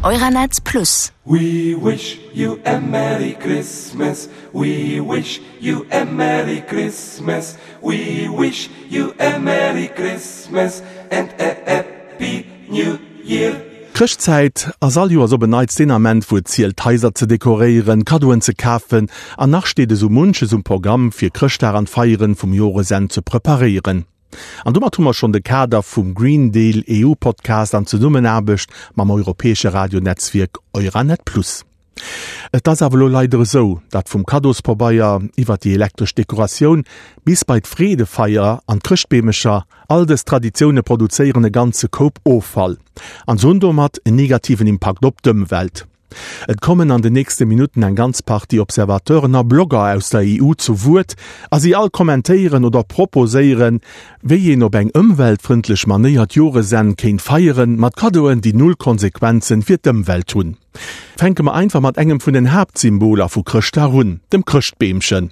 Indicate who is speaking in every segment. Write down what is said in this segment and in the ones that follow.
Speaker 1: Euranet Plus.
Speaker 2: We wish you a Merry Christmas, we wish you a Merry Christmas, we wish you a Merry Christmas and a Happy New Year.
Speaker 3: D'Chrëschtzäit ass all Joers op en Neits deen Ament, wou et zielt d'Haiser ze dekoréieren, Kaddoen ze kafen an nach steet esou munches um Programm fir Chrëschtdag an d'Feieren vum Joresenn ze preparéieren. An domat hu mer schonn de Kader vum Green Deal EU Podcast an Zesummenaarbecht mam europäesche Radionetzwierk Euranet Plus. Et ass awer elo leider esou, datt vum Kaddospabeier iwwer déi elektresch Dekoratioun bis bei d'Freedefeier an d'Chrëschtbeemecher, all dës Traditioune produzéieren e ganze Koup Offall an se hunn domat en negativen Impakt op d'Ëmwelt. Et kommen an den nächste Minutten eng ganz Partie Observateuren a Blogger aus der EU zu Wuert a si all kommentéieren oder proposéieren, wéi een op eng ëmweltfrëndlech Manéier d'Joresenn kéint feieren, mat Kaddoen, déi null Konsequenzen fir d'Ëmwelt hunn. Fänke mer einfach mat engem vun den Haaptsymboler vu Chrëschtdag un, dem Chrëschtbeemchen.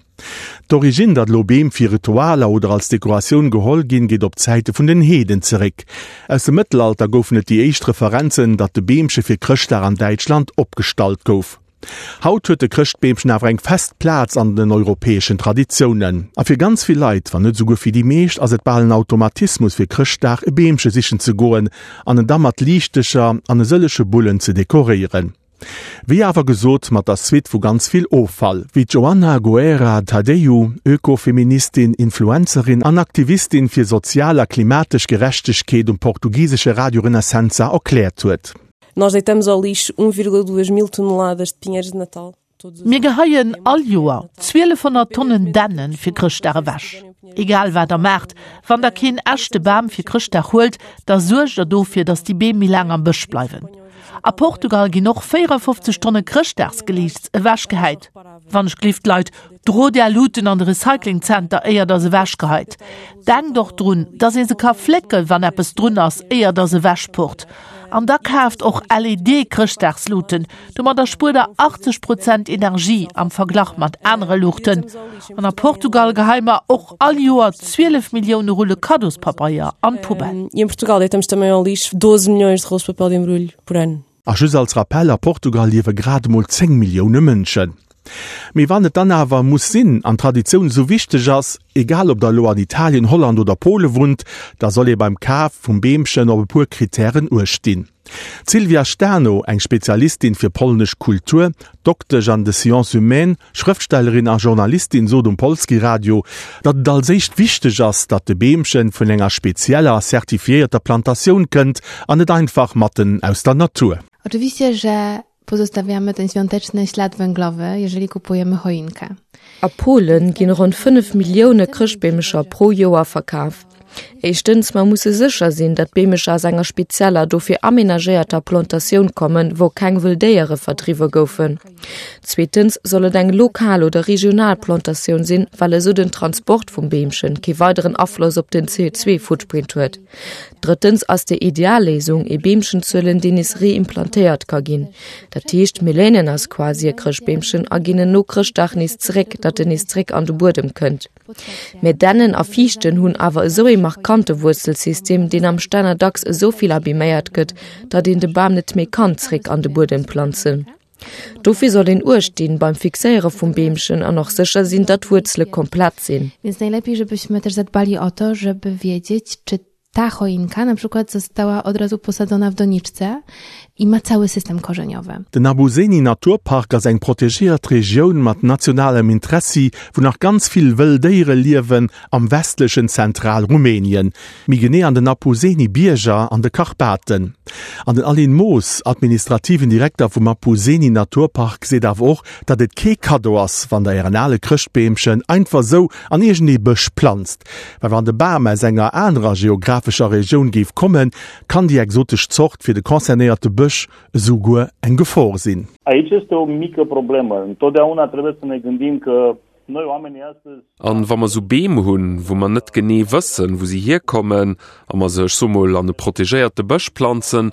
Speaker 3: D'Originn, datt elo Beem fir Ritualer oder als Dekoratioun geholl ginn, geet op d'Zäite vun den Heeden zeréck. Aus dem Mëttelalter goufen et déi éischt Referenzen, datt de Beemche fir Chrëschtdag an Däitschland opgestallt gouf. Haut huet de Chrëschtbeemchen awer eng fest Plaz an den europäeschen Traditiounen. A fir ganz vill Leit, wann net esouguer fir déi meescht, ass et bal en Automatismus fir Chrëschtdag e Beemche sichen ze goen an en da mat Liichtecher an e sëllege Bullen ze dekoréieren. Wéi awer gesot, mat der Suite vu ganz vill Offall, wéi d'Joana Guerra Tadeu, Ökofeministin, Influencerin an Aktivistin fir sozial a klimatesch Gerechtegkeet um portugisesche Radio Renascença erkläert huet.
Speaker 4: Nós deitamos ao lixo 1,2 mil toneladas de pinheiros de Natal.
Speaker 5: Mir geheien all Joer 1200 Tonnen Dännen fir Chrëschtdag ewech. Egal wat der maacht, wann der keen echte Bam fir Chrëschtdag huelt, da suergt der dofir, datt déi Beem méi laang am Bësch bleiwen. A Portugal ginn och 54 Tonne Chrëschtdagsgeliichts ewechgehäit. Wann ech glift, Leit, drot är Luuten an de Recyclingzenter, éier der se ewechgeheit. Denkt och drun, dass ee se ka flécken, wann eppes drun ass, éier der se ewechpurrt. An da kaaft och LED-Chrëschtdagsluuten, domadder spuert der 80 Prozent Energie am Verglach mat anere Luuchten. An a Portugal geheie mer och all Joer 12 Millioune Rulle Kaddospabeier an d'Poubelle.
Speaker 4: E em Portugal deitamos também ao lixo 12 milhões de rolos de papel de embrulho por ano.
Speaker 3: A just als Rappell, a Portugal liewe grad emol 10 Millioune Mënschen. Mee wann et dann awer muss sinn an d'Traditioun esou wichteg ass, egal ob der elo an Italien, Holland oder Pole wunnt, da soll ee beim Kaf vum Beemchen op e puer Krittären uecht dinn. D'Sylwia Stano, eng Spezialistin fir polnesch Kultur, Doktesch an de Sciences humaines, Schrëftstellerin a Journalistin sot um Polskie Radio, datt et als éischt wichteg ass, datt de Beemchen vun enger spezieller a certifiéierter Plantatioun kënnt an net einfach matten aus der Natur.
Speaker 6: Oczywiście, że pozostawiamy ten świąteczny ślad węglowy, jeżeli kupujemy choinkę.
Speaker 7: A Polen ginn ronn 5 Millioune Chrëschtbeemecher pro Joer verkaf. Éischtens, mer musse sécher sinn, datt d'Beemecher aus enger spezieller, dofir amenagéierter Plantatioun kommen, wou keng wëll Déiere verdriwwe goufen. Zweetens soll et eng lokal oder regional Plantatioun sinn, well esou den Transport vum Beemchen kee weideren Afloss op den CO2-Footprint huet. Drëttens ass déi ideal Léisung, ee Beemchen ze huelen, deen nees reimplantéiert ka ginn. Dat heescht, mir léinen eis quasi e Chrëschtbeemchen a ginn en no Chrëschtdag nees zeréck, datt en nees zeréck an de Buedem kënnt. Mä Dännen a Fiichten hunn awer esou ee markante Wuerzelsystem, deen am Stänner dacks esou vill abiméiert gëtt, datt een de Bam net méi kann zeréck an de Buedem planzen. Dofir soll een Uecht dinn beim Fixéiere vum Beemchen an och sécher sinn, datt d'Wuerzele komplett sinn.
Speaker 6: Więc najlepiej, żebyśmy też zadbali o to, żeby wiedzieć, czy ta choinka na przykład została od razu posadzona w doniczce i ma cały system korzeniowy.
Speaker 3: Den Abuseni Naturpark ass eng protegéiert Regioun mat nationalem Interessi, wou nach ganz vill wëll Déiere liewen, am westlechen Zentralrumänien, méi genee an den Apuseni Bierger an de Karpaten. An den Alin Moos, administrativen Direkter vum Apuseni Naturpark, seet awer och, datt et kee Kaddo ass, wann der ären ale Chrëschtbeemchen einfach sou an iergendee Bësch planzt. Well wann de Bam aus enger anerer geographescher Regioun géif kommen, kann déi exotesch Zort fir de concernéierte Bësch esou guer eng Gefor sinn.
Speaker 8: Aici este o mică problemă. Întotdeauna trebuie să ne gândim că noi oamenii astăzi.
Speaker 9: An wa mer sou Beem hunn, wou mer net genee wëssen, wou se hierkommen, a mer se, ech soe mol, an e protegéierte Bësch planzen,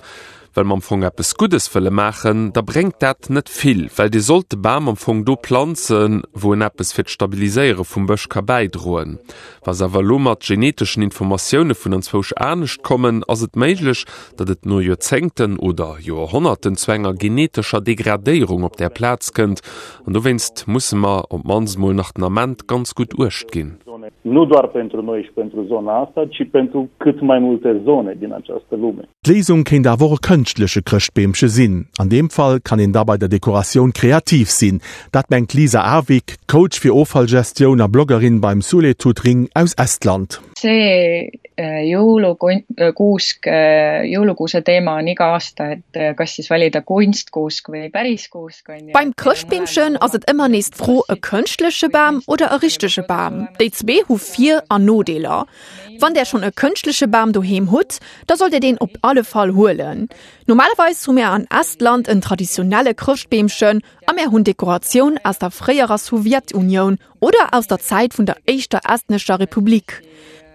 Speaker 9: well mer am Fong eppes Guddes wëlle maachen, da bréngt dat net vill, well Dir sollt de Bam am Fong do planzen, wou en eppes fir d'Stabiliséiere vum Bësch ka bäidroen. Wa se awer elo mat geneteschen Informatioune vun anzwousch anescht kommen, ass et méiglech, datt et no Joerzéngten oder Joerhonnerten zu enger genetescher Degradéierung op där Plaz kënnt. An dowéinst musse mer op d'mannst mol nach den Ament ganz gutt Uecht ginn.
Speaker 8: Nu doar pentru noi și pentru zona asta, ci pentru cât mai multe zone din această lume.
Speaker 3: D'Léisung kéint awer och e kënschtleche Chrëschtbeemche sinn. An deem Fall kann een da bei der Dekoratioun kreativ sinn. Dat mengt d'Lisa Aavik, Coach fir Offallgestioun a Bloggerin beim Suletut Ring aus Estland.
Speaker 1: See jõulukuusk, jõulukuuse teema on iga aasta, et kas siis valida kunstkuusk või päris kuusk on ju.
Speaker 10: Beim Chrëschtbeemchen ass et ëmmer nees d'Fro, e kënschtleche Bam oder e richtege Bam? Déi zwee hu Vir an Nodeeler. Wann där schonn e kënschtleche Bam doheem hutt, da sollt Dir deen op alle Fall huelen. Normalerweis hu mär an Estland en traditionelle Chrëschtbeemchen a mär hunn Dekoratioun aus der fréierer Sowjetunioun oder aus der Zäit vun der éischter estnescher Republik.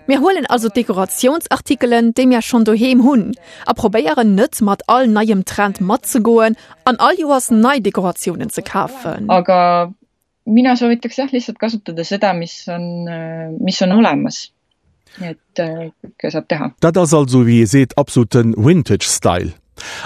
Speaker 10: Mir huelen also d'Dekoratiounsartikelen, déi mär schonn doheem hunn a probéieren net mat all neiem Trend matzegoen an all Joers nei Dekoratiounen ze kafen.
Speaker 1: Aga mina soovitaks jah lihtsalt kasutada seda, mis on, mis on olemas. Et äh, kõike saab teha.
Speaker 3: Dat ass also, wéi ee seet, absoluten Vintage Style.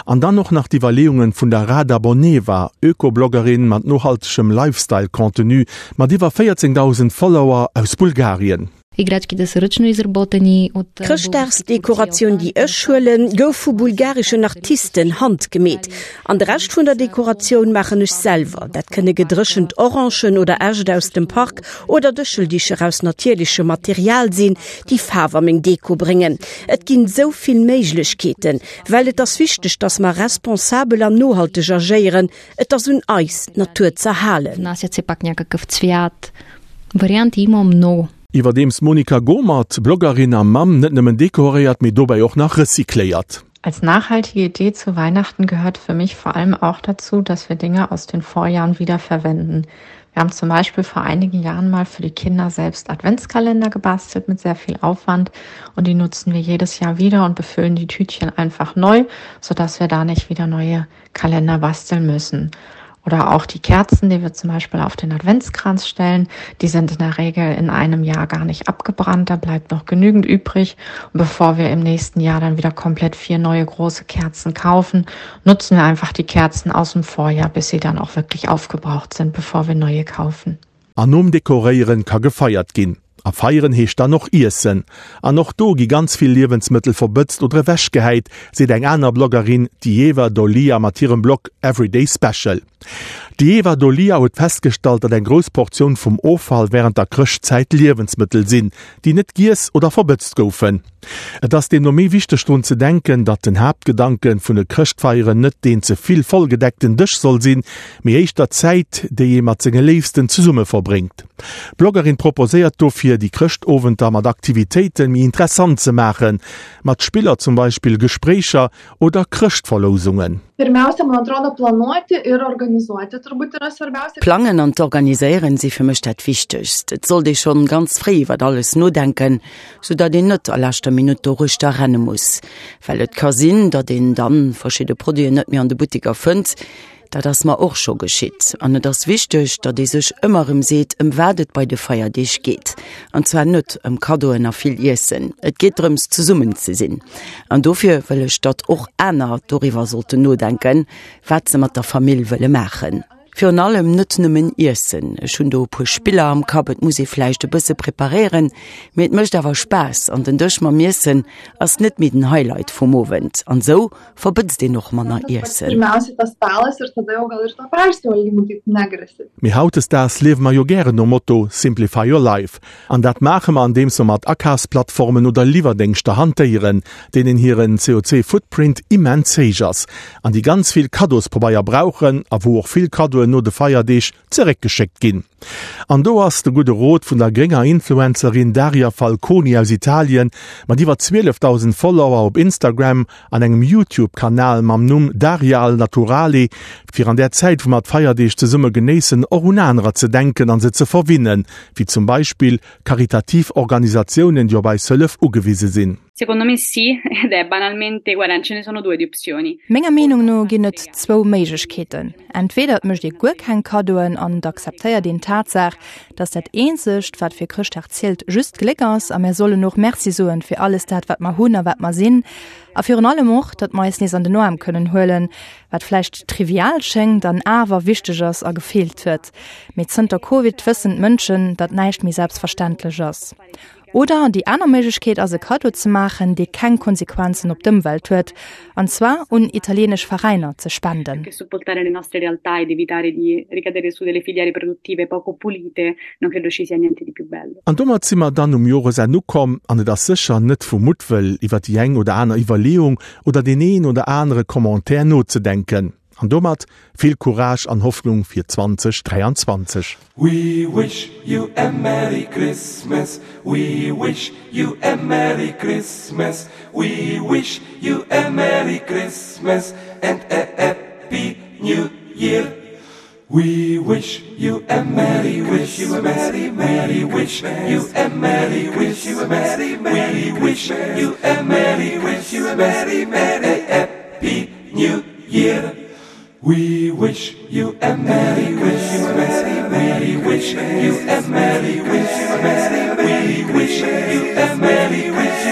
Speaker 3: An dann och nach d'Iwwerleeungen vun der Rada Boneva, Öko-Bloggerin mat nohaltegem Lifestyle-Contenu mat iwwer 14.000 Follower aus Bulgarien.
Speaker 11: D'Chrëschtdagsdekoratioun, déi ech huelen, gouf vu bulgareschen Artisten handgemeet. An de Rescht vun der Dekoratioun maachen ech selwer. Dat kënne gedréchent Orangen oder Äscht aus dem Park oder Dëscheldicher aus natierlechem Material sinn, déi Faarf a meng Deko bréngen. Et ginn esou vill Méiglechkeeten, well et ass wichteg, dass mer responsabel an nohalteg agéieren. Et ass un eis, d'Natur z'erhalen.
Speaker 3: Iwwerdeems d'Monika Gohmert, Bloggerin a Mamm, net nëmmen dekoréiert, mee dobäi och nach recycléiert.
Speaker 12: Als nachhaltige Idee zu Weihnachten gehört für mich vor allem auch dazu, dass wir Dinge aus den Vorjahren wiederverwenden. Wir haben zum Beispiel vor einigen Jahren mal für die Kinder selbst Adventskalender gebastelt mit sehr viel Aufwand und die nutzen wir jedes Jahr wieder und befüllen die Tütchen einfach neu, sodass wir da nicht wieder neue Kalender basteln müssen. Oder auch die Kerzen, die wir zum Beispiel auf den Adventskranz stellen, die sind in der Regel in einem Jahr gar nicht abgebrannt, da bleibt noch genügend übrig. Und bevor wir im nächsten Jahr dann wieder komplett vier neue große Kerzen kaufen, nutzen wir einfach die Kerzen aus dem Vorjahr, bis sie dann auch wirklich aufgebraucht sind, bevor wir neue kaufen.
Speaker 3: An nom Dekoréieren ka gefeiert ginn. A feieren heescht dann och iessen. An och do gi ganz vill Liewensmëttel verbëtzt oder ewechgehäit, seet eng aner Bloggerin, d'Ieva Dolia mat hirem Blog Everyday Special. D'Ieva Dolia huet festgestallt, datt eng grouss Portioun vum Offall wärend der Chrëschtzäit Liewensmëttel sinn, déi net giess oder verbëtzt goufen. Et ass deemno méi wichteg drun ze denken, datt den Haaptgedanke vun de Chrëschtfeieren net deen ze vill vollgedeckten Dësch soll sinn, mee éischter d'Zäit, déi ee mat senge Léifsten zesumme verbréngt. D'Bloggerin proposéiert dofir, déi Chrëschtowenter mat Aktivitéite méi interessant ze maachen, mat Spiller zum Beispill, Gespréicher oder Chrëschtverlousungen.
Speaker 13: D'Plangen an d'Organiséieren si fir mech dat Wichtegst. Et sollt ee schonn ganz fréi iwwert alles nodenken, sou datt een net a leschter Minutt doruechter renne muss. Well et ka sinn, datt een dann verschidde Produiten net méi an de Butteker fënnt. Dat ass mer och scho geschitt. An et ass wichteg, datt ee sech ëmmer erëm seet, ëm wat et bei de Feierdeeg geet. An zwar net ëm Kaddoen a vill Iessen. Et geet drëms, zesummen ze sinn. An dofir wëll ech, datt och aner doriwwer sollten nodenken, wat se mat der Famill wëlle maachen. Virun allem net nëmmen iessen. Ech hunn do e puer Spiller am Kapp. Et muss ee vläicht e bësse preparéieren, mee et mécht awer Spaass. An den Dësch mam Iessen ass net méi den Highlight vum Owend. An esou verbëtzt een och manner Iessen.
Speaker 3: Mee hautdesdaags liewe mer jo gären nom Motto Simplify your life. An dat maache mer andeems mer mat Akafsplattformen oder Liwwerdéngschter hantéieren, deenen hiren CO2-Footprint immens héich ass an déi ganz vill Kaddospabeier brauchen a wou och vill Kaddoen no de Feierdeeg zeréckgeschéckt ginn. An do ass de gudde Rot vun der grénger Influencerin Daria Falconi aus Italien mat iwwer 12.000 Follower op Instagram an engem YouTube-Kanal mam Numm Daria al Naturale, fir an där Zäit wou mer d'Feierdeeg zesumme genéissen och un anerer ze denken an se ze verwinnen, wéi zum Beispill karitativ Organisatiounen déi op eis Hëllef ugewise sinn.
Speaker 14: Secondo me sì, ed è banalmente, guarda, ce ne sono due di opzioni.
Speaker 15: Menger Meenung no ginn et zwou Méiglechkeeten, Entweder et mécht ee guer keng Kaddoen an et akzeptéiert een d'Tatsaach, dass dat eenzegt, wat fir Chrëschtdag zielt, just d'Gléck ass a mär sollen och Merci soen fir alles dat, wat mer hunn a wat mer sinn a virun allem och, datt mer eis nees an den Aarm kënnen huelen, wat vläicht trivial schéngt an awer wichteg ass a gefeelt huet. Mee zënter Covid wëssen d'Mënschen, datt näischt méi selbstverständlech ass. Oder déi aner Méiglechkeet ass e Kaddo ze maachen, dee keng Konsequenzen op d'Ëmwelt huet, an zwar un italienesch Veräiner ze spenden.
Speaker 3: An domat si mer dann um Joresenn ukomm, an et ass sécher net vu Muttwëll iwwer déi eng oder aner Iwwerleeung oder deen een oder anere Commentaire nozedenken. An domat vill Courage an Hoffnung fir 2023.
Speaker 2: We wish you a Merry Christmas, we wish you a Merry Christmas, we wish you a Merry Christmas and a Happy New Year. We wish you a Merry Christmas, we wish you a Merry Christmas, we wish you a Merry Christmas and a Happy New Year. We wish you a Merry Christmas, we wish you a Merry Christmas, we wish you a Merry Christmas.